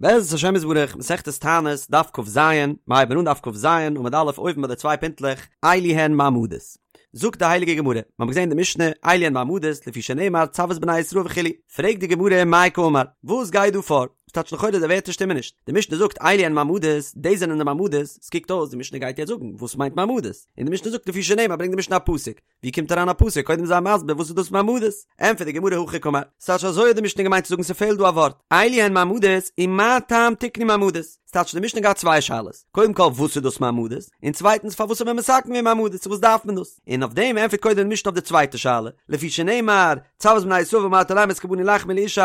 בעזרת השם יתברך, מסכת תענית, דף כ"ז, מיר הייבן אן דף כ"ז, עמוד א', אויבן ביי די צוויי פינטלעך, אלו הן מעמדות. זאגט די הייליגע גמרא, מיר האבן געזען די משנה, אלו הן מעמדות, לפי שנאמר צו את בני ישראל וכו', פרעגט די גמרא מאי קאמר, וואס גייט דא פאר? ס'טייטש לכאורה די ווערטער שטימען נישט, די משנה זאגט אלו הן מעמדות, דאס זענען די מעמדות, ס'קוקט אויס די משנה גייט יעצט זאגן וואס מיינט מעמדות, און די משנה זאגט לפי שנאמר ברענגט די משנה א פסוק, ווי קומט אריין א פסוק? קודם זיי מסביר וואס איז דאס מעמדות? ענטפערט די גמרא הכי קאמר, ס'טייטש אזוי האט די משנה געמיינט צו זאגן ס'פעלט דא א ווארט, אלו הן מעמדות ומה טעם תיקנו מעמדות? ס'טייטש די משנה געהאט צוויי שאלות, קודם כל וואס איז דאס מעמדות? און צווייטנס פארוואס האט מען מתקן געווען מעמדות צו וואס דארף מען דאס? און אויף דעם ענטפערט קודם די משנה אויף די צווייטע שאלה, לפי שנאמר, צו את בני ישראל ואמרת אליהם את קרבני לחמי לאשי,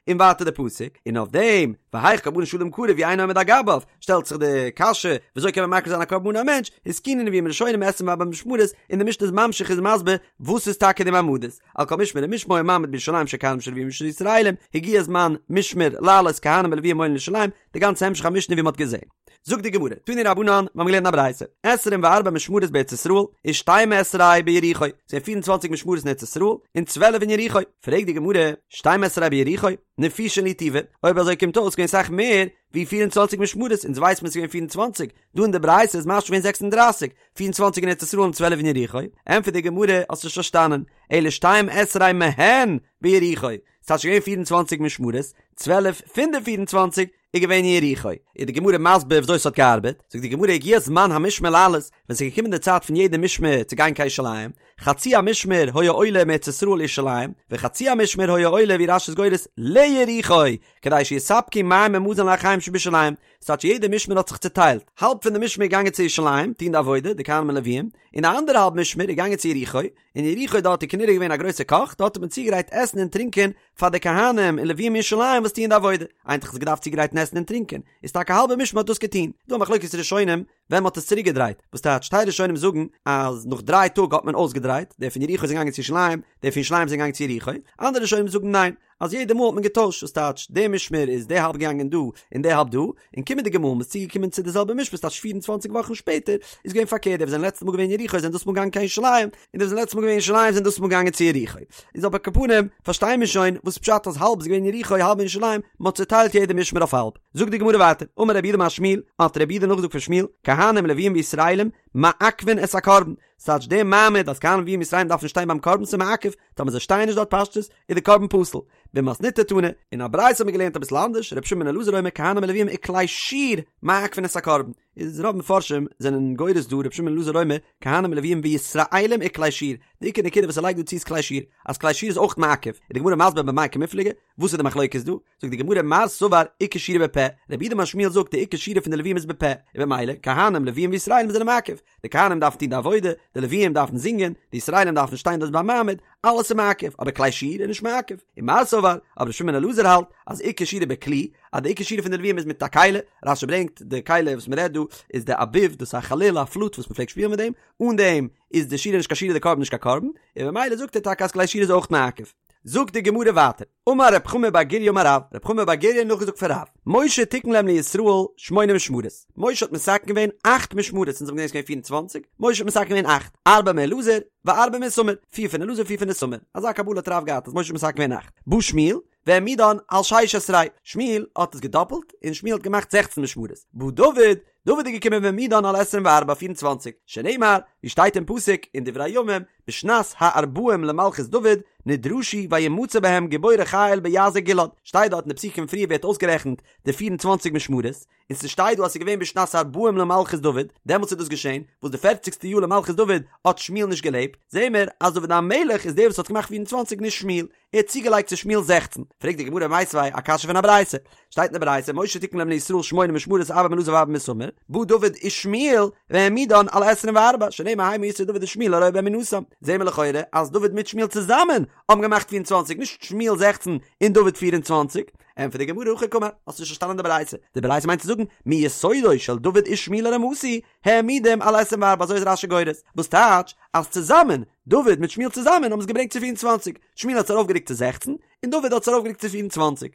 און ווייטער די פסוק, און אויף דעם, והיאך קרבנו של אדם קרב והוא אינו עומד על גביו, שטעלט זיך די קשיא, וויאזוי קען מען מקריב זיין א קרבן אן א מענטש, התקינו נביאים ראשונים עשרים וארבע משמרות, און די משנה איז ממשיך איז מסביר וואס איז טאקע די מעמדות, על כל משמר ומשמר היה מעמד בירושלים של כהנים של לווים ושל ישראלים, הגיע זמן משמר לעלות כהנים ולווים עולים לירושלים, די גאנצע המשך המשנה ווי מען האט געזען. זאגט די גמרא, תנו רבנן, מיר האבן געלערנט א ברייתא, עשרים וארבע משמרות בארץ ישראל, ושתים עשרה ביריחו, ס'געווען פיר און צוואנציג משמרות אין ארץ ישראל, און צוועלף אין יריחו, פרעגט די גמרא, שתים עשרה ביריחו, נפישין להו טובי, אויב אזוי קומט אויס געווען סאך מער ווי 24 משמרות, אונז ווייסט מען ס'איז געווען 24, דא אין די ברייתא איז משמע געווען 36, 24 אין ארץ ישראל און 12 אין יריחו, ענטפערט די גמרא, האסט נישט פארשטאנען, אלא שתים עשרה מהן ביריחו, ס'טייטש געווען 24 משמרות, 12 פון די 24 איז געווען אין יריחו. איז די גמרא מסביר וויאזוי ס'האט געארבעט, זאגט די גמרא הגיע זמן המשמר לעלות, ווען ס'איז געקומען די צייט פון יעדע משמר צו גיין קיין ירושלים, חצי המשמר היה עולה מארץ ישראל לירושלים, וחצי המשמר היה עולה ווי רש"י איז גורס ליריחו, כדי שיספקו מים ומזון לאחיהם שבירושלים, ס'טייטש יעדע משמר האט זיך צוטיילט, האלב פון די משמר איז געגאנגען צו ירושלים טון די עבודה, די כהנים און לוויים, און די אנדערע האלב משמר איז געגאנגען צו יריחו, אין יריחו דארט איז כנראה געווען א גרויסע קאך, דארט האט מען צוגעגרייט עסן און טרינקען פאר די כהנים און לוויים אין ירושלים וואס טוען די עבודה, איינער האט דאך געדארפט צוגרייטן עסן און טרינקען, איז טאקע האלבע משמר האט דאס געטון, דא א מחלוקת ראשונים ווען מ'האט עס צוריק געדרייט, וואס טייטש טייל ראשונים זאגן אז נאך דריי טאג האט מען אויסגעדרייט, די פון יריחו זענען געגאנגען צו ירושלים, די פון ירושלים זענען געגאנגען צו יריחו, אנדערע ראשונים זאגן ניין, אז יעדע מאל האט מען געטוישט, וואס טייטש די משמר איז די האלב געגאנגען דא און די האלב דא, און קומענדיגע מאל מ'איז צוגעקומען צו די זעלבע משמר ס'טייטש 24 וואכן שפעטער, איז געווען פארקערט די וואס זענען לעצטע מאל געווען אין יריחו זענען דאס מאל געגאנגען קיין ירושלים, און די וואס זענען לעצטע מאל געווען אין ירושלים זענען דאס מאל געגאנגען צו יריחו. איז אבער על כל פנים פארשטייען מיר שוין וואס פשט אז האלב איז געווען אין יריחו האלב אין ירושלים, מ'האט צוטיילט יעדע משמר אויף האלב. זאגט די גמרא ווייטער, אמר רב יהודה אמר שמואל, האט רב יהודה נאכגעזאגט פון שמואל, כהנים לוויים וישראלים מעכבין את הקרבן, ס'טייטש די מעמד אז כהנים לוויים ישראלים דארפן שטיין ביים קרבן ס'איז מעכב, טאמער זיי שטייען נישט דארט פשטות איז די קרבן פסול. במתניתא תנא, אין א ברייתא האט מען געלערנט אביסל אנדערש, רבי שמעון בן אלעזר אומר כהנים ולוויים וכלי שיר מעכבין את הקרבן, איז רוב מפרשים זענען גורס דא רבי שמעון בן אלעזר אומר כהנים ולוויים וישראלים וכלי שיר, די עיקר נקודה וואס ער לייגט דא צו איז כלי שיר, אז כלי שיר איז אויך מעכב, איז די גמרא מסביר במאי קמיפלגי, וואס איז די מחלוקת דא? זאגט די גמרא מר סבר עיקר שירה בפה, רב יהודה אמר שמואל זאגט די עיקר שירה פון די לוויים איז בפה, און במילא כהנים לוויים וישראלים זענען מעכב, די כהנים דארפן טון די עבודה, די לוויים דארפן זינגען, די ישראלים דארפן שטיין דארט ביים מעמד, אלעס איז מעכב, אבער כלי שיר איז נישט מעכב. ומר סבר, אבער ר' שמעון בן אלעזר האלט אז עיקר שירה בכלי, אז די עיקר שירה פון די לוויים איז מיט א כלי, רש"י ברענגט די כלי וואס מען רעדט דא איז די אביב, דאס איז א חליל א פלוט וואס מען פלעגט שפילן מיט דעם, אן דעם איז די שירה נישט קיין שירה די קרבן נישט קיין קרבן, און במילא זאגט ער טאקע אז כלי שיר איז אויך מעכב. זאגט די גמרא ווייטער, אמר רב חמא בר גוריא אמר רב, רב חמא בר גוריא האט נאכגעזאגט פון רב, משה תיקן להם לישראל שמונה משמרות, משה האט מתקן געווען אכט משמרות, אונז האבן געזען ס'איז געווען 24, משה האט מתקן געווען אכט, ארבעה מאלעזר, וארבעה מאיתמר, פיר פון אלעזר פיר פון איתמר, אזא קבלה האט רב געהאט אז משה האט מתקן געווען אכט, בא שמואל, והעמידן על שש עשרה, שמואל האט עס געדאפלט, און שמואל האט געמאכט זעכצן משמרות, בא דוד, דוד איז געקומען והעמידן על עשרים וארבע, פיר און צוואנציג, שנאמר, ווי שטייט אין פסוק אין דברי הימים, בשנת הארבעים למלכות דוד, נדרשו וימצא בהם גיבורי חיל ביעזר גלעד, שטייט דארט אין די פסוקים פריער ווערט אויסגערעכנט די פיר און צוואנציג משמרות, און ס'שטייט דא אז ס'איז געווען בשנת הארבעים למלכות דוד, דעמאלטס איז דאס געשען, וואס די פערציגסטע יאר למלכות דוד האט שמואל נישט געלעבט, זעהן מיר אז דוד המלך איז דער וואס האט געמאכט פיר און צוואנציג נישט שמואל, ער האט צוגעלייגט צו שמואל זעכצן. פרעגט די גמרא מיתיבי א קשיא פון א ברייתא. שטייט אין די ברייתא משה תיקן להם לישראל שמונה משמרות ארבעה מאלעזר וארבעה מאיתמר, בא דוד ושמואל והעמידן על עשרים וארבע, שנאמר המה ישאו דוד ושמואל הרואה באמונתם. זעהן מיר לכאורה אז דוד מיט שמואל צוזאמען האבן געמאכט פיר און צוואנציג, נישט שמואל זעכצן און דוד פיר און צוואנציג. ענטפערט די גמרא הכי קאמר, האסט נישט פארשטאנען די ברייתא. די ברייתא מיינט צו זאגן מיסודו של דוד ושמואל הרמתי העמידום על עשרים וארבע אזוי איז רש"י גורס, וואס טייטש אז צוזאמען, דוד מיט שמואל צוזאמען האבן עס געברענגט צו 24, שמואל האט עס ארויפגערוקט צו 16, און דוד האט עס ארויפגערוקט צו 24.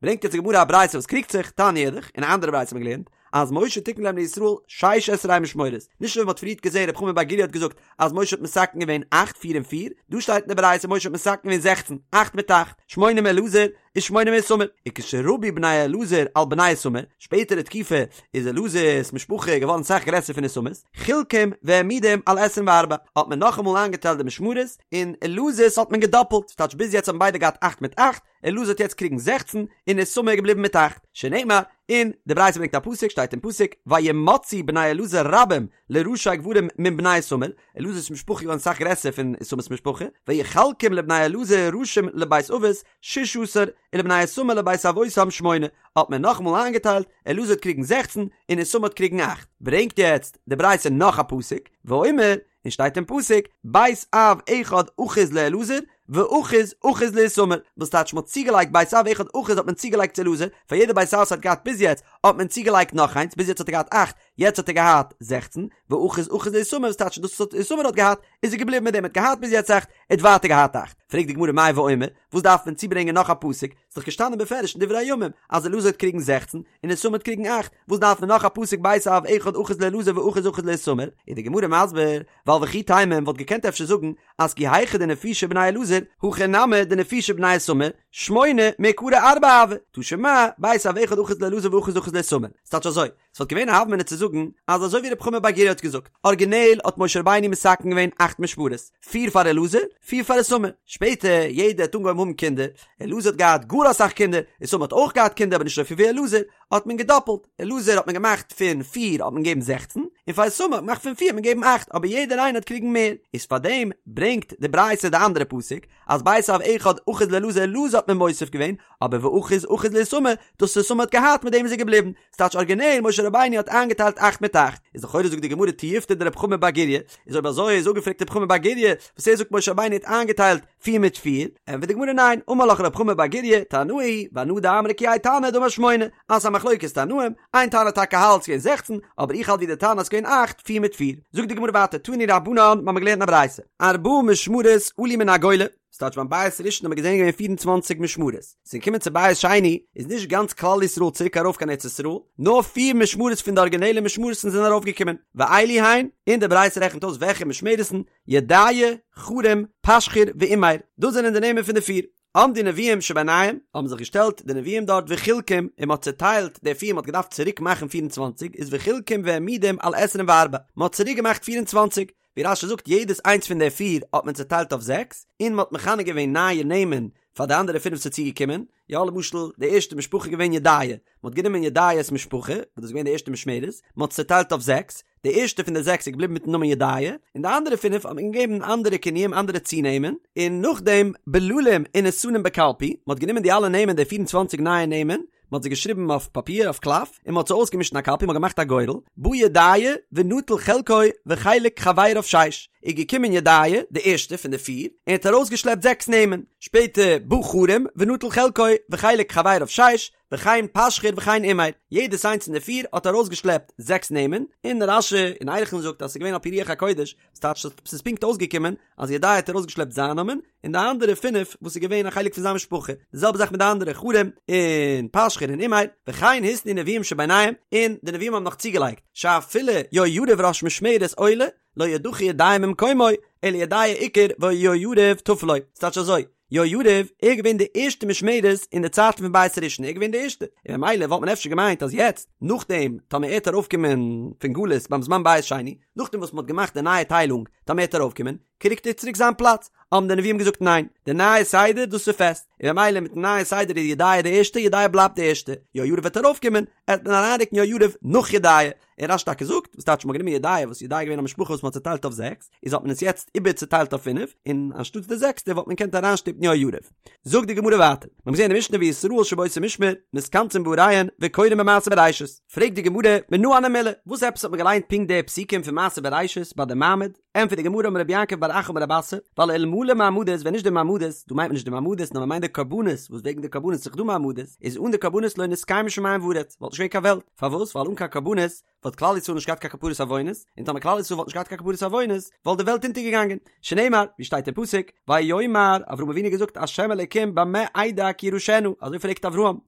ברענגט יעצט די גמרא א ברייתא וואס קריגט זיך, תניא אידך, אין א אנדערע ברייתא האט מען געלערנט, אז משה תיקן להם לישראל שש עשרה משמרות, נישט אזוי ווי מען האט פריערט געזען רב חמא בר גוריא האט געזאגט אז משה האט מתקן געווען אכט פיר און פיר, דא שטייט אין די ברייתא משה האט מתקן געווען זעכצן, אכט מיט אכט, שמונה מאלעזר. ושמונה מאיתמר, וכשרבו בני אלעזר על בני איתמר, שפעטערע תקופה איז אלעזר'ס משפחה געווארן סאך גרעסער פון איתמר'ס, חילקום והעמידום על עשרים וארבע, האט מען נאכאמאל איינגעטיילט די משמרות, און אלעזר'ס האט מען געדאפלט, ס'טייטש ביז יעצט האבן ביידע געהאט אכט מיט אכט, אלעזר האט יעצט קריגן זעכצן, און איתמר איז געבליבן מיט אכט, שנאמר, און די ברייתא ברענגט א פסוק, שטייט אין פסוק, וימצאו בני אלעזר רבים לראשי גברים מן בני איתמר, אלעזר'ס משפחה איז געווארן סאך גרעסער פון איתמר'ס משפחה, ויחלקום לבני אלעזר ראשים לבית אבות ששה עשר, ולבני איתמר לבית אבותם שמונה, האט מען נאכאמאל איינגעטיילט, אלעזר האט קריגן זעכצן, און איתמר האט קריגן אכט. ברענגט יעצט די ברייתא נאך א פסוק, ואומר, און שטייט אין פסוק, בית אב אחד אחוז לאלעזר, ואחוז אחוז לאיתמר, וואס טייטש מ'האט צוגעלייגט בית אב אחד אחוז האט מען צוגעלייגט צו אלעזר, פאר יעדע בית אב וואס האט געהאט ביז יעצט, האט מען צוגעלייגט נאך איינס, ביז יעצט האט ער געהאט אכט, יעצט האט ער געהאט זעכצן, ואחוז אחוז לאיתמר, וואס טייטש דאס וואס איתמר האט געהאט, איז ער געבליבן מיט דעם, ער האט געהאט ביז יעצט אכט, ער האט ווייטער געהאט אכט. פרעגט די גמרא מאי ואומר, וואס דארף מען צוברענגען נאך א פסוק, ס'איז דאך געשטאנען בפירוש אין דברי הימים אז אלעזר האט קריגן זעכצן און איתמר האט קריגן אכט, וואס דארף מען נאך א פסוק בית אב אחד אחוז לאלעזר ואחוז אחוז לאיתמר? איז די גמרא מסביר, ווייל וכי תימא מען וואלט געקענט אפשר זאגן אז כי היכי דנפישי בני אלעזר, הכי נמי דנפישי בני איתמר, שמונה מעיקרא ארבעה הוו, תא שמע, בית אב אחד אחוז לאלעזר ואחוז אחוז לאיתמר. ס'טייטש אזוי, ס'וואלט געווען א הוה אמינא צו זאגן אז אזוי ווי רב חמא בר גוריא האט געזאגט, ארגינעל האט משה רבינו מתקן געווען אכט משמרות, פיר פאר אלעזר, פיר פאר איתמר. שפעטער, יעדער האט אנגעהויבן האבן קינדער, אלעזר האט געהאט גאר אסאך קינדער, איתמר האט אויך געהאט קינדער אבער נישט אזויפיל ווי אלעזר, האט מען געדאפלט, אלעזר האט מען געמאכט פון פיר האט מען געגעבן זעכצן, און פאר איתמר האט מען געמאכט פון פיר האט מען געגעבן אכט, אבער יעדער איינער האט קריגן מער. איז פארדעם ברענגט די ברייתא די אנדערע פסוק, אז בית אב אחד אחוז לאלעזר אלעזר האט מען מוסיף געווען, אבער ואחוז אחוז לאיתמר, דאס וואס איתמר האט געהאט מיט דעם איז ער געבליבן, ס'טייטש ארגינעל משה רבינו האט איינגעטיילט אכט מיט אכט, איז לכאורה זאגט די גמרא תיובתא דרב חמא בר גוריא, איז אויב אזוי איז אפגעפרעגט רב חמא בר גוריא וואס ער זאגט משה רבינו האט איינגעטיילט פיר מיט פיר, ענטפערט די גמרא ניין, אמר לך רב חמא בר גוריא, תנאי היא, ואנא דאמרי כי האי תנא דאמר שמונה, אז ס'איז א מחלוקת תנאים, איין תנא טאקע האלט ס'געווען זעכצן, אבער איך האלט ווי די תנא אז ס'געווען אכט, פיר מיט פיר. זאגט די גמרא ווייטער תנו רבנן, מ'האמיר געלערנט אין א ברייתא, ארבעה משמרות עלו מן הגולה, ס'טייטש ביים בית ראשון האט מען געזען געווען פיר און צוואנציג משמרות, ס'איז געקומען צו בית שני איז נישט גאנץ כלל ישראל צוריק ארויף קיין ארץ ישראל, נאר פיר משמרות פון די ארגינעלע משמרות'ן זענען ארויף געקומען, ואלו הן, און די ברייתא רעכנט אויס וועלכע משמרות'ן, ידעיה, חרים, פשחור ואימר, דאס זענען די נעמען פון די פיר. עמדו נביאים שביניהם, האבן זיך געשטעלט די נביאים דארט וחילקום, און מ'האט צעטיילט די פיר, מ'האט געדארפט צוריק מאכן פיר און צוואנציג, איז וחילקום והעמידום על עשרים וארבע, מ'האט צוריק געמאכט פיר און צוואנציג, ווי רש"י זאגט יעדעס איינס פון די פיר האט מען צעטיילט אויף זעקס, און מ'האט מכנה געווען נייע נעמען פאר די אנדערע פינף ס'איז צוגעקומען, יא למשל די ערשטע משפחה איז געווען ידעיה, מ'האט גענומען ידעיה'ס משפחה, וואס דאס איז געווען די ערשטע משמרת, מ'האט עס צעטיילט אויף זעקס, די ערשטע פון די זעקס איז געבליבן מיטן נאמען ידעיה, און די אנדערע פינף האט מען געגעבן אנדערע כינויים אנדערע צונעמען, און נאכדעם בללים ונתנום בקלפי, מ'האט גענומען די אלע נעמען די פיר און צוואנציג נייע נעמען, מ'האט זיי געשריבן אויף פאפיר אויף קלף, און מ'האט זיי אויסגעמישט אין א קלפי, מ'האט געמאכט א גורל, בא ידעיה ונטל חלקו וחלק חבריו שש, איז געקומען ידעיה, די ערשטע פון די פיר, און האט ארויסגעשלעפט זעקס נעמען, שפעטער בא חרים ונטל חלקו וחלק חבריו שש, וכן פשחור וכן אימר, יעדעס איינס פון די פיר האט ארויסגעשלעפט זעקס נעמען, און רש"י אין ערכין זאגט אז ס'איז געווען על פי רוח הקודש, ס'טייטש אז ס'איז פונקט אויסגעקומען אז ידעיה האט ארויסגעשלעפט זיין נאמען, און די אנדערע פינף וואס איז געווען א חלק פון זיין משפחה, די זעלבע זאך מיט די אנדערע חרים און פשחור און אימר, וכן התנו נביאים שביניהם, און די נביאים האבן נאך צוגעלייגט, שאפילו יהויריב ראש משמרת עולה, לא ידחה ידעיה ממקומו, אלא ידעיה עיקר ויהויריב טפל לו, ס'טייטש אזוי, יהויריב ער איז געווען די ערשטע משמרת אין די צייטן פון בית ראשון ער איז געווען די ערשטע און ממילא וואלט מען אפשר געמיינט אז יעצט נאכדעם טאמער ער וועט ארויפקומען פון גלות ביים זמן בית שני נאכדעם וואס מען האט געמאכט די נייע טיילונג טאמער ער וועט ארויפקומען קריגט ער צוריק זיין פלאץ האבן די נביאים געזאגט ניין די נייע סדר דאס איז פעסט און ממילא מיטן נייע סדר איז ידעיה די ערשטע ידעיה בלייבט די ערשטע יהויריב וועט ארויפקומען עט מען אריינרוקן יהויריב נאך ידעיה און רש"י טאקע זאגט, וואס טייטש מ'האט גענומען ידעיה, וואס ידעיה איז געווען א משפחה וואס מ'האט צעטיילט אויף זעקס, איז האט מען עס יעצט איבער צעטיילט אויף פינף, און אנשטאטס די זעקסטע וואלט מען געקענט אריינשטופן יהויריב. זאגט די גמרא ווייטער, מ'האט געזען אין די משנה וישראל שבאותו משמר מתכנסין בעריהן וקורין במעשה בראשית, פרעגט די גמרא, מנא הני מילי, וואס עפעס האט מען געליינט פונקט די פסוקים פון מעשה בראשית ביי די מעמד? ענטפערט די גמרא אמר רב יעקב בר אחא אמר רב אסי, ווייל אלמלא מעמדות ווען נישט די מעמדות, דא מיינט מען נישט די מעמדות נאר מ'מיינט די קרבנות, וואס וועגן די קרבנות איז דאך דא מעמדות, איז אן די קרבנות לא נתקיימו שמים וארץ, וואלט נישט געווען קיין וועלט, פארוואס? ווייל אן קיין קרבנות וואלט כלל ישראל נישט געהאט קיין כפרת עוונות, און טאמער כלל ישראל וואלט נישט געהאט קיין כפרת עוונות, וואלט די וועלט אונטערגעגאנגען. שנאמר, ווי שטייט אין פסוק, ויאמר, אברהם אבינו האט געזאגט השם אלוקים במה אדע כי אירשנה, אזוי פרעגט אברהם,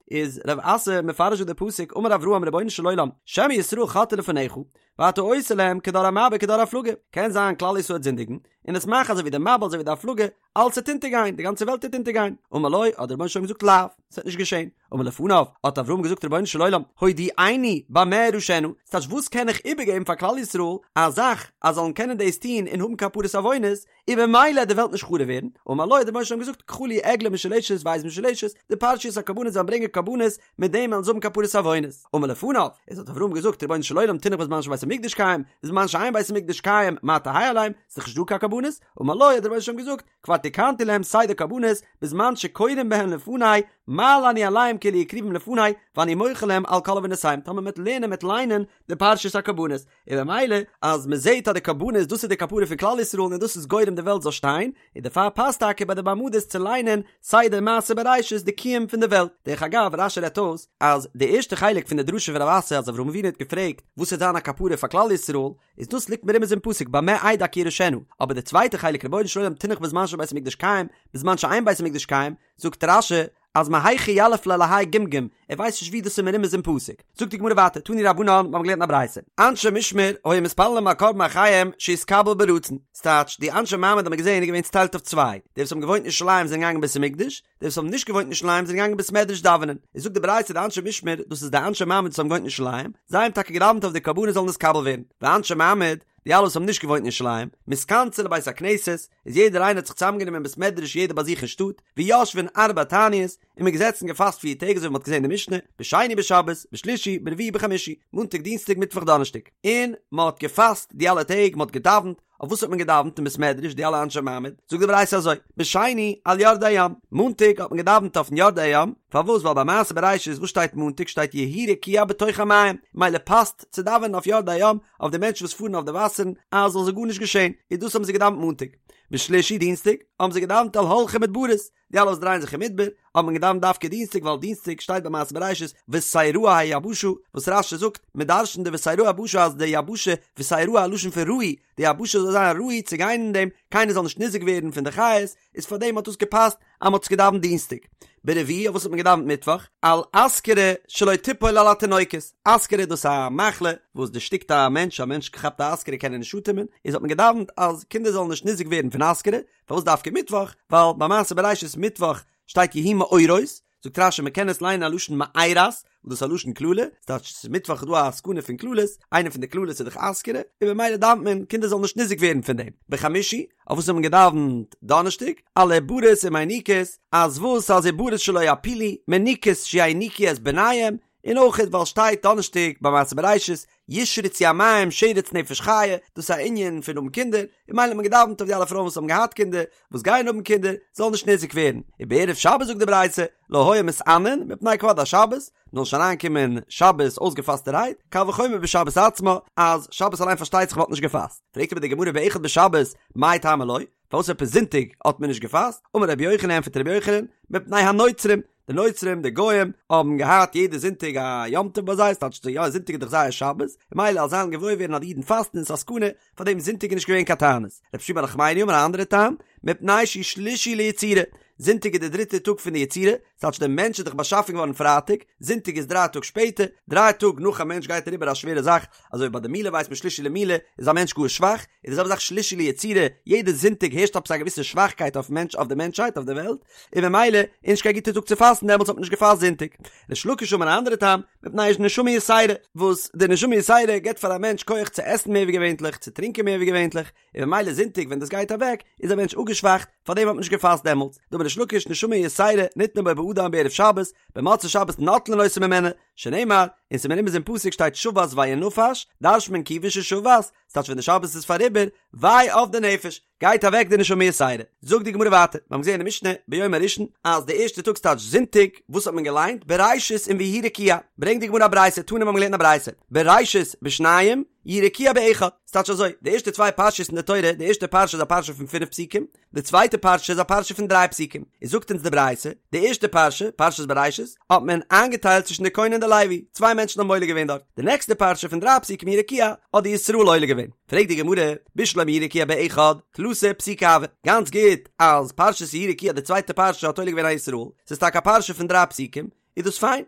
איז רב אסי מפרש דא די פסוק, אמר אברהם רבונו של עולם, שמא ישראל חוטאין לפניך, ואתה עושה להם כדור המבול כדור הפלגה, קען זיין כלל ישראל וועט זינדיגן, און און עס מאכן אזוי ווי די מבול אזוי ווי די הפלגה, אלעס וועט אונטערגיין, די גאנצע וועלט וועט אונטערגיין, אמר לו, האט דער רבונו של עולם געזאגט לאו, עס וועט נישט געשען, אמר לפניו, האט אברהם געזאגט רבונו של עולם, הודיעני במה אירשנה, ס'טייטש וואס קען איך איבערגעבן פאר כלל ישראל, א זאך אז זאלן קענען דאס טון און האבן כפרת עוונות, און במילא וועט די וועלט נישט חרוב ווערן, אמר לו האט דער רבונו של עולם געזאגט קחה לי עגלה משולשת ועז משולשת, די פרשיות הקרבנות זאלן ברענגען קרבנות, מיט דעם וועלן זיי האבן כפרת עוונות. אמר לפניו, איז האט אברהם געזאגט רבונו של עולם תינח בזמן שבית המקדש קיים, בזמן שאין בית המקדש קיים מה תהא עליהם, ס'איז דאך נישט דא קיין קרבנות, אמר לו האט דער רבונו של עולם געזאגט, כבר תיקנתי להם סדר קרבנות, בזמן שקורין בהן לפני, מעלה אני עליהם כאילו הקריבום לפני, ואני מוחל להם על כל עוונותיהם, טאמער מ'וועט לערנען מ'וועט ליינען די פרשת הקרבנות, און במילא אז מען זעט אז די קרבנות דאס איז די כפרה פון כלל ישראל און דאס איז גורם די וועלט זאל שטיין, און דערפאר פאסט טאקע ביי די מעמדות צו ליינען סדר מעשה בראשית די קיום פון די וועלט. דרך אגב רש"י רעדט אויס אז די ערשטע חלק פון די דרשה פון רב אסי אז אברהם אבינו האט געפרעגט וואס וועט זיין א כפרה פאר כלל ישראל איז דאס ליגט מרומז אין פסוק במה אדע כי אירשנה, אבער די צווייטע חלק רבונו של עולם תינח בזמן שבית המקדש קיים בזמן שאין בית המקדש קיים זאגט רש"י אז מהיכא יליף ליה להאי גמגום, ער ווייסט נישט ווי דאס איז מרומז אין פסוק. זאגט די גמרא ווייטער, תנו רבנן, מיר האבן געלערנט א ברייתא, אנשי משמר היו מתפללים על קרבן אחיהם שיתקבל ברצון, ס'טייטש, די אנשי מעמד האט מען געזען איז געווען צוטיילט אויף צוויי, די וואס האבן געוואוינט אין ירושלים זענען געגאנגען בית המקדש, די וואס האבן נישט געוואוינט אין ירושלים זענען געגאנגען בית מדרש דאווענען. איז זאגט די ברייתא די אנשי משמר, דאס איז די אנשי מעמד וואס האבן געוואוינט אין ירושלים, זיי האבן טאקע געדאווענט אויף די קרבנות זאלן נתקבל ווערן, ואנשי מעמד, די אלע וואס האבן נישט געוואוינט אין ירושלים, מתכנסין לבית הכנסת, איז יעדער איינער האט זיך צוזאמגענומען אין בית מדרש יעדער ביי זיך אין שטאט, ויושבין ארבע תעניות, און מ'איז געזעצן געפאסט פיר טעג אזוי ווי מ'האט געזען אין די משנה, בשני בשבת, בשלישי, ברביעי בחמישי, מאנטאג דינסטאג מיטוואך דאנערשטאג, און מ'האט געפאסט די אלע טעג, מ'האט געדאווענט, אויף וואס האט מען געדאווענט אין בית מדרש די אלע אנשי מעמד? זאגט די ברייתא אזוי, בשני על יורדי הים, מאנטאג האט מען געדאווענט אויפן יורדי הים, פארוואס ווייל ביי מעשה בראשית וואס שטייט מאנטאג שטייט יהי רקיע בתוך המים, מילא פאסט צו דאווענען אויף יורדי הים, אויף די מענטשן וואס פארן אויף די וואסערן אז זאל זיי גארנישט געשען, איז דאס האבן זיי געדאווענט מאנטאג. בשלישי דינסטאג האבן זיי געדאווענט על הולכי מדברות, די אלע וואס דרייען זיך אין מדבר, האט מען געדאווענט דווקא דינסטאג ווייל דינסטאג שטייט ביי מעשה בראשית ותראה היבשה, וואס רש"י זאגט, מען דרש'נט די ותראה היבשה אז די יבשה ותראה א לשון פון ראוי, די יבשה זאל זיין ראוי צו גיין אין דעם, קיינער זאל נישט ניזוק ווערן פון די חיות, איז פאר דעם האט דאס געפאסט אז מען האט עס געדאווענט דינסטאג. ברביעי אויף וואס האט מען געדאווענט מיטוואך? על אסכרה שלא תיפול על התינוקות, אסכרה דאס איז א מחלה וואס דערשטיקט א מענטש, א מענטש כאפט א אסכרה קען ער נישט אטעמען, איז האט מען געדאווענט אז קינדער זאלן נישט ניזוק ווערן פון אסכרה, פארוואס דווקא מיטוואך? ווייל ביי מעשה בראשית מיטוואך שטייט יהי מאורות, זאגט רש"י מ'קען עס ליינען א לשון מארת, וואס דאס איז א לשון קללה, ס'טייטש ס'איז מיטוואך איז דא א סכנה פון קללות, איינע פון די קללות איז דאך אסכרה, און במילא דאווענט מען קינדער זאלן נישט ניזוק ווערן פון דעם. בחמישי, אויף וואס האט מען געדאווענט דאנערשטאג? על עוברות ומיניקות, אז וואס אז עוברות שלא יפילו, מיניקות שיניקו את בניהם, און אויך ווייל שטייט דאנערשטאג ביי מעשה בראשית ישרצו המים שרץ נפש חיה, דאס איז א ענין פון האבן קינדער, און ממילא האט מען געדאווענט אויף די אלע פרויען וואס האבן געהאט קינדער, וואס גייען האבן קינדער, זאלן נישט ניזוק ווערן, ובערב שבת זאגט די ברייתא, לא היו מתענין מפני כבוד השבת, מ'זאל נישט אריינקומען שבת אויסגעפאסטערהייט, קל וחומר בשבת עצמה, אז שבת אליין פארשטייט זיך מ'האט נישט געפאסט. פרעגט אבער די גמרא באחד בשבת, מאי טעמא לא? פארוואס עפעס זונטאג האט מען נישט געפאסט? אמר רבי יוחנן ענטפערט רבי יוחנן, מפני הנוצרים, די נוצרים די גוים האבן געהאט יעדע זונטאג א יום טוב ביי זיי, ס'טייטש יא זונטאג איז דאך זייער שבת, און ממילא אז זיי וועלן געוואויר ווערן אז די אידן פאסטן איז א סכנה, פאר דעם זונטאג איז נישט געווען קיין תענית. רבי שמואל בר נחמני אמר א אנדערע טעם, מפני שהוא שלישי ליצירה, זונטאג איז די דריטע טאג פון די יצירה, ס'טייטש דער מענטש איז דאך באשאפן געווארן פרייטאג, זונטאג איז דריי טאג שפעטער, דריי טאג נאך א מענטש גייט אריבער א שווערע זאך, אזוי ווי ביי די מילה ווייסט מען שלישי למילה איז א מענטש גאר שוואך, איז די זעלבע זאך שלישי ליצירה, יעדע זונטאג הערשט עפעס א געוויסע שוואכקייט אויפן מענטש אויף די מענטשהייט אויף די וועלט, און ממילא איז נישט קיין גוטע טאג צו פאסטן דעמאלטס האט מען נישט געפאסט זונטאג. ריש לקיש אמר אן אנדערע טעם, מפני נשמה יתירה, וואס די נשמה יתירה געבט פאר א מענטש כח צו עסן מער ווי געווענטליך, צו טרינקען מער ווי געווענטליך, און ממילא זונטאג ווען דאס גייט אוועק איז א מענטש אפגעשוואכט, פארדעם האט מען נישט געפאסט דעמאלטס. דאמר ריש לקיש נשמה יתירה ניתנה בו באדם בערב שבת, במוצאי שבת נוטלין אותה ממנו, שנאמר, און ס'איז מרומז אין פסוק שטייט שבת וינפש, דרש'נט מען כיוון ששבת, ס'טייטש ווען די שבת איז פאריבער, וויי אויף די נפש, גייט אוועק די נשמה יתירה. זאגט די גמרא ווייטער, מיר האבן געזען אין די משנה ביום הראשון אז די ערשטע טאג ס'טייטש זונטאג, וואס האט מען געליינט? בראשית און ויהי רקיע. ברענגט די גמרא א ברייתא, תנא מיר האבן געלערנט א ברייתא, בראשית בשניים, יהי רקיע באחד. ס'טייטש אזוי, די ערשטע צוויי פרשיות אין די תורה, די ערשטע פרשה איז א פרשה פון פינף פסוקים, די צווייטע פרשה איז א פרשה פון דריי פסוקים, איז זאגט אונז די ברייתא, די ערשטע פרשה, פרשת בראשית, האט מען איינגעטיילט צווישן די כהן און די לוי, צוויי מענטשן האבן עולה געווען דארט, די נעקסטע פרשה פון דריי פסוקים יהי רקיע, האט די ישראל עולה געווען. פרעגט די גמרא, בשלמא יהי רקיע באחד, תלתא פסוקי הוו, גאנץ גוט אז פרשת יהי רקיע די צווייטע פרשה האט עולה געווען א ישראל, ס'איז טאקע א פרשה פון דריי פסוקים, איז דאס פיין,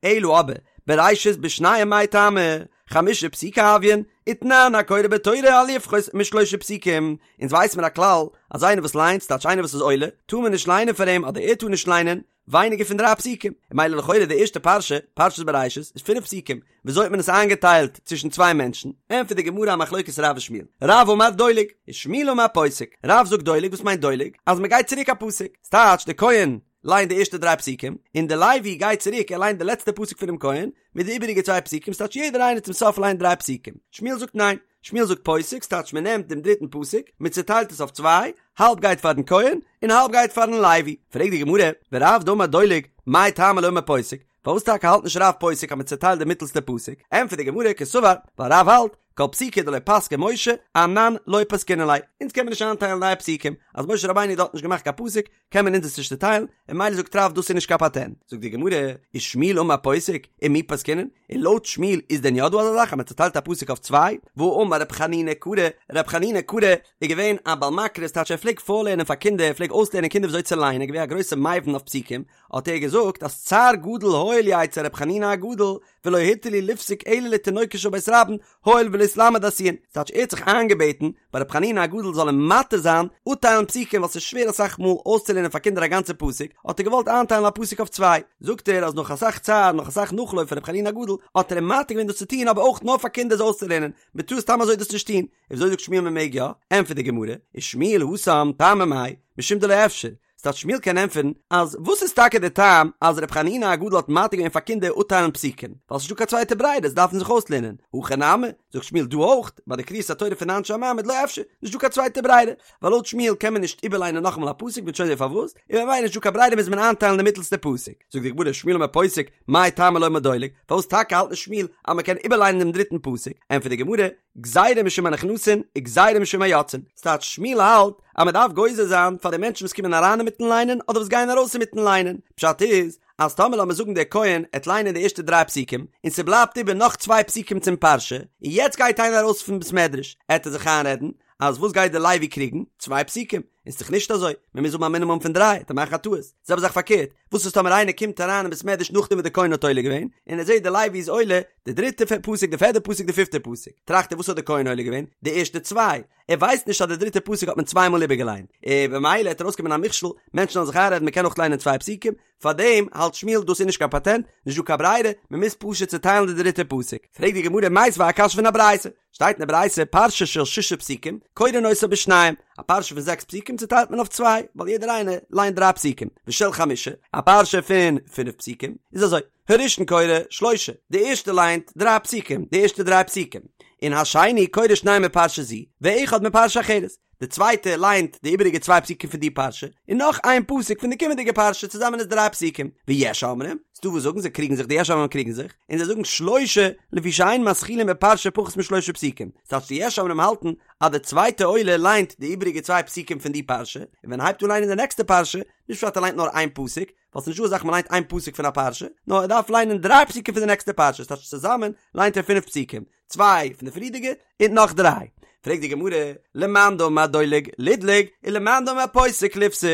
אלא אבער, בראשית בשניים מאי טעמא, חמשה פסוקי הויין, ותנן הקורא בתורה אל יפחות משלושה פסוקים, אונז ווייס מיר א כלל אז איינער וואס ליינט, ס'טייטש איינער וואס איז עולה, טאר מען נישט ליינען פאר אים אדער ער טאר נישט ליינען, ווייניגער פון דריי פסוקים, און ממילא לכאורה די ערשטע פרשה, פרשת בראשית, איז פינף פסוקים, וויאזוי האט מען עס איינגעטיילט צווישן צוויי מענטשן? ענטפערט די גמרא א מחלוקת רב ושמואל, רב אמר דולג, ושמואל אמר פוסק, רב זאגט דולג, וואס מיינט דולג? אז מען גייט צוריק א פסוק, ס'טייטש די כהן ליינט די ערשטע דריי פסוקים, און די לוי גייט צוריק ער ליינט די לעצטע פסוק פונעם כהן, מיט די איבעריגע צוויי פסוקים, ס'טייטש יעדער איינער צום סוף ליינט דריי פסוקים, שמואל זאגט ניין, שמואל זאגט פוסק, ס'טייטש מען נעמט דעם דריטן פסוק, מען צעטיילט עס אויף צוויי, האלב גייט פארן כהן, און האלב גייט פארן לוי. פרעגט די גמרא, ורב דאמר דולג, מאי טעמא לא אמר פוסק, פארוואס טאקע האלט נישט רב פוסק אז מען צעטיילט די מיטלסטע פסוק? ענטפערט די גמרא, קסבר, ווייל רב האלט, כל פסוקא דלא פסקיה משה, אנן לא פסקינן ליה, אונז קען מען נישט איינטיילן נייע פסוקים, אז משה רבינו האט דארט נישט געמאכט קיין פסוק, קען מען אונז עס נישט צוטיילן, און ממילא זאגט רב דאס איז נישט קיין פאטענט. זאגט די גמרא, ושמואל אמר פוסק, ומי פסקינן? און לויט שמואל איז דען יא דא אזא זאך אז מען צוטיילט א פסוק אויף צוויי? והאמר רב חנינא קרא, רב חנינא קרא איז געווען א בעל מקרא, ס'טייטש ער פלעגט פארלערנען פאר קינדער, ער פלעגט אויסלערנען קינדער וויאזוי צו ליינען, געווען א גרויסע מבין אויף פסוקים, האט ער געזאגט אז צער גדול היה לי אצל רב חנינא הגדול, ולא התיר לי לפסוק אלא לתינוקות של בית רבן, הואיל ולהתלמד עשויין, ס'טייטש ער האט זיך איינגעבעטן ביי רב חנינא הגדול זאל אים מתיר זיין אפטיילן פסוקים ווייל ס'איז שווער אסאך מאל אויסצולערנען פאר קינדער א גאנצע פסוק, האט ער געוואלט איינטיילן א פסוק אויף צוויי, זאגט ער אז נאך אסאך צער נאך אסאך נאכלויף פון רב חנינא הגדול האט ער אים מתיר געווען דאס צו טון אבער אויך נאר פאר קינדער עס אויסצולערנען, מ'טאר סתם אזוי דאס נישט טון, און וויאזוי זאגט שמואל מ'מעג יא? ענטפערט די גמרא, ושמואל התם טעמא מאי, משום דלא אפשר, ס'טייטש שמואל קען ענטפערן אז וואס איז טאקע די טעם אז ר' חנינא הגדול האט מתיר געווען פאר קינדער אפטיילן פסוקים ווייל ס'נישטא קיין צווייטע ברירה זיי דארפן זיך אויסלערנען הכא נמי זאגט שמואל דא אויך ביי די קריאת התורה פון אנשי המעמד לא אפשר נישטא קיין צווייטע ברירה ווייל לויט שמואל קען מען נישט איבערליינען נאכאמאל א פסוק מ'וועט שוין זען פארוואס און ממילא נישטא קיין ברירה מוז מען איינטיילן די מיטלסטע פסוק זאגט די גמרא שמואל אמר פוסק מאי טעמא לא אמר דולג פארוואס טאקע האלט נישט שמואל אז מ'קען איבערליינען דעם דריטן פסוק ענטפערט די גמרא גזירה משום הנכנסין וגזירה משום היוצאין, ס'טייטש שמואל האלט אז מ'דארף גוזר זיין פאר די מענטשן וואס קומען אריין אינמיטן ליינען אדער וואס גייען ארויס אינמיטן ליינען, פשט איז אז טאמער לאמיר זאגן דער כהן עט ליינען די ערשטע דריי פסוקים און ס'בלייבט איבער נאך צוויי פסוקים צום פרשה און יעצט גייט איינער ארויס פון בית מדרש עט ער זיך איינרעדן אז וואס גייט דער לוי קריגן? צוויי פסוקים. און ס'דאך נישט אזוי, מען מוז האבן א מינימום פון דריי, עט ער מאכן א טעות. זעלבע זאך פארקערט, וואס איז טאמער איינער קומט אריין אין בית מדרש נאכדעם וואס דער כהן האט עולה געווען, און ער זעט דער לוי איז עולה די דריטע פסוק, די פערדע פסוק, די פיפטע פסוק, טראכט ער וואס האט דער כהן עולה געווען? די ערשטע צוויי. ער ווייסט נישט אז די דריטע פסוק האט מען צוויי מאל איבערגעליינט, און במילא עט ארויסקומען א מכשול, מענטשן זאלן זיך איינרעדן מען קען אויך ליינען צוויי פסוקים, פארדעם האלט שמואל דאס איז נישט קיין פאטענט, נישט דא קיין ברירה, מען מוז פשוט צעטיילן די דריטע פסוק. פרעגט די גמרא מיתיבי א קשיא פון א ברייתא, שטייט אין די ברייתא פרשה של שישה פסוקים, קורין אותה בשניים, א פרשה פון זעקס פסוקים צעטיילט מען אויף צוויי, ווייל יעדער איינער ליינט דריי פסוקים, ושל חמשה, א פרשה פון פינף פסוקים, איז אזוי, הראשון קורא שלושה, די ערשטע ליינט דריי פסוקים, די ערשטע דריי פסוקים, און השני קורא שניים מפרשה זו, ואחד מפרשה אחרת, די צווייטע ליינט די איבעריגע צוויי פסוקים פון די פרשה, און נאך איין פסוק פון די קומענדיגע פרשה, צוזאמען איז דריי פסוקים. ויש אומרים, ס'דא וואס זאגן זיי קריגן זיך, די יש אומרים קריגן זיך, און זיי זאגן שלושה, לפי שאין מתחילין בפרשה פחות משלושה פסוקים, ס'טייטש די יש אומרים האלטן אז די צווייטע עולה ליינט די איבעריגע צוויי פסוקים פון די פרשה, און ווען ער הייבט אן ליינען די נעקסטע פרשה, נישט פשט ער ליינט נאר איין פסוק, ווייל ס'נישט דא אזא זאך מ'ליינט איין פסוק פון א פרשה, נאר ער דארף ליינען דריי פסוקים פון די נעקסטע פרשה, ס'טייטש צוזאמען ליינט ער פינף פסוקים, צוויי פון די פריערדיגע און נאך דריי. פרעגט די גמרא, למאן דאמר דולג לידלוג ולמאן דאמר פוסק ליפסוק,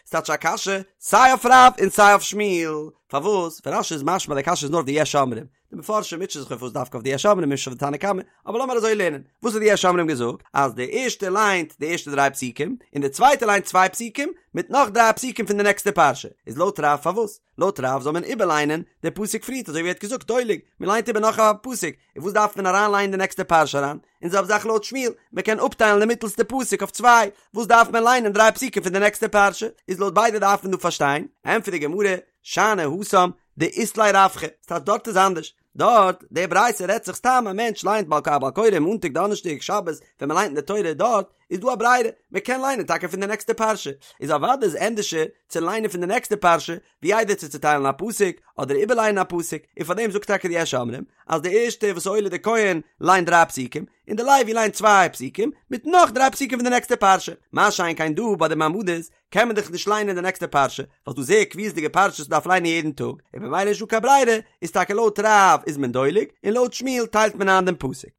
ס'טייטש א קשיא סיי אויף רב און סיי אויף שמואל, פארוואס? פון רש"י איז משמע די קשיא איז נאר אויף די יש אומרים, די מפרשים מוטשען זיך אויף וואס דווקא אויף די יש אומרים נישט אויף די תנא קמא, אבער לאמיר אזוי לערנען, וואס האט די יש אומרים געזאגט? אז די ערשטע ליינט די ערשטע דריי פסוקים, און די צווייטע ליינט צוויי פסוקים, מיט נאך דריי פסוקים פון די נעקסטע פרשה, איז לויט רב פארוואס? לויט רב זאל מען איבערליינען די פסוק פריערט אזוי ווי ער האט געזאגט דולג, מען ליינט איבער נאך א פסוק, און וואס דארף מען אריין ליינען די נעקסטע פרשה אריין? און זעלבע זאך לויט שמואל, מען קען אפטיילן די מיטעלסטע פסוק אויף צוויי, וואס דארף מען ליינען דריי פסוקים פון די נעקסטע פרשה? איז לויט ביידע דארף מען דא פארשטיין, ענטפערט די גמרא, שאני התם דאית ליה רווחא, ס'טייטש דארט איז אנדערש, דארט, די ברייתא רעדט זיך סתם א מענטש ליינט בעל א בעל קורא מאנטאג דאנערשטאג שבת ווען מען ליינט אין די תורה דארט איז דא א ברירה מען קען ליינען טאקע פון די נעקסטע פרשה איז אוודאי איז ענדערשער צו ליינען פון די נעקסטע פרשה ווי איידער צו צוטיילן א פסוק אדער איבערליינען א פסוק און פאר דעם זאגט טאקע די יש אומרים אז די ערשטע וואס עולה די כהן ליינט דריי פסוקים און די לוי ליינט צוויי פסוקים מיט נאך דריי פסוקים פון די נעקסטע פרשה מה שאין כן דא ביי די מעמדות קען מען דאך נישט ליינען די נעקסטע פרשה, ווייל ס'דא זייער קביעות'דיגע פרשות מ'דארף ליינען יעדן טאג, און במילא נישטא קיין ברירה, איז טאקע לויט רב איז מען דולג, און לויט שמואל טיילט מען איין דעם פסוק.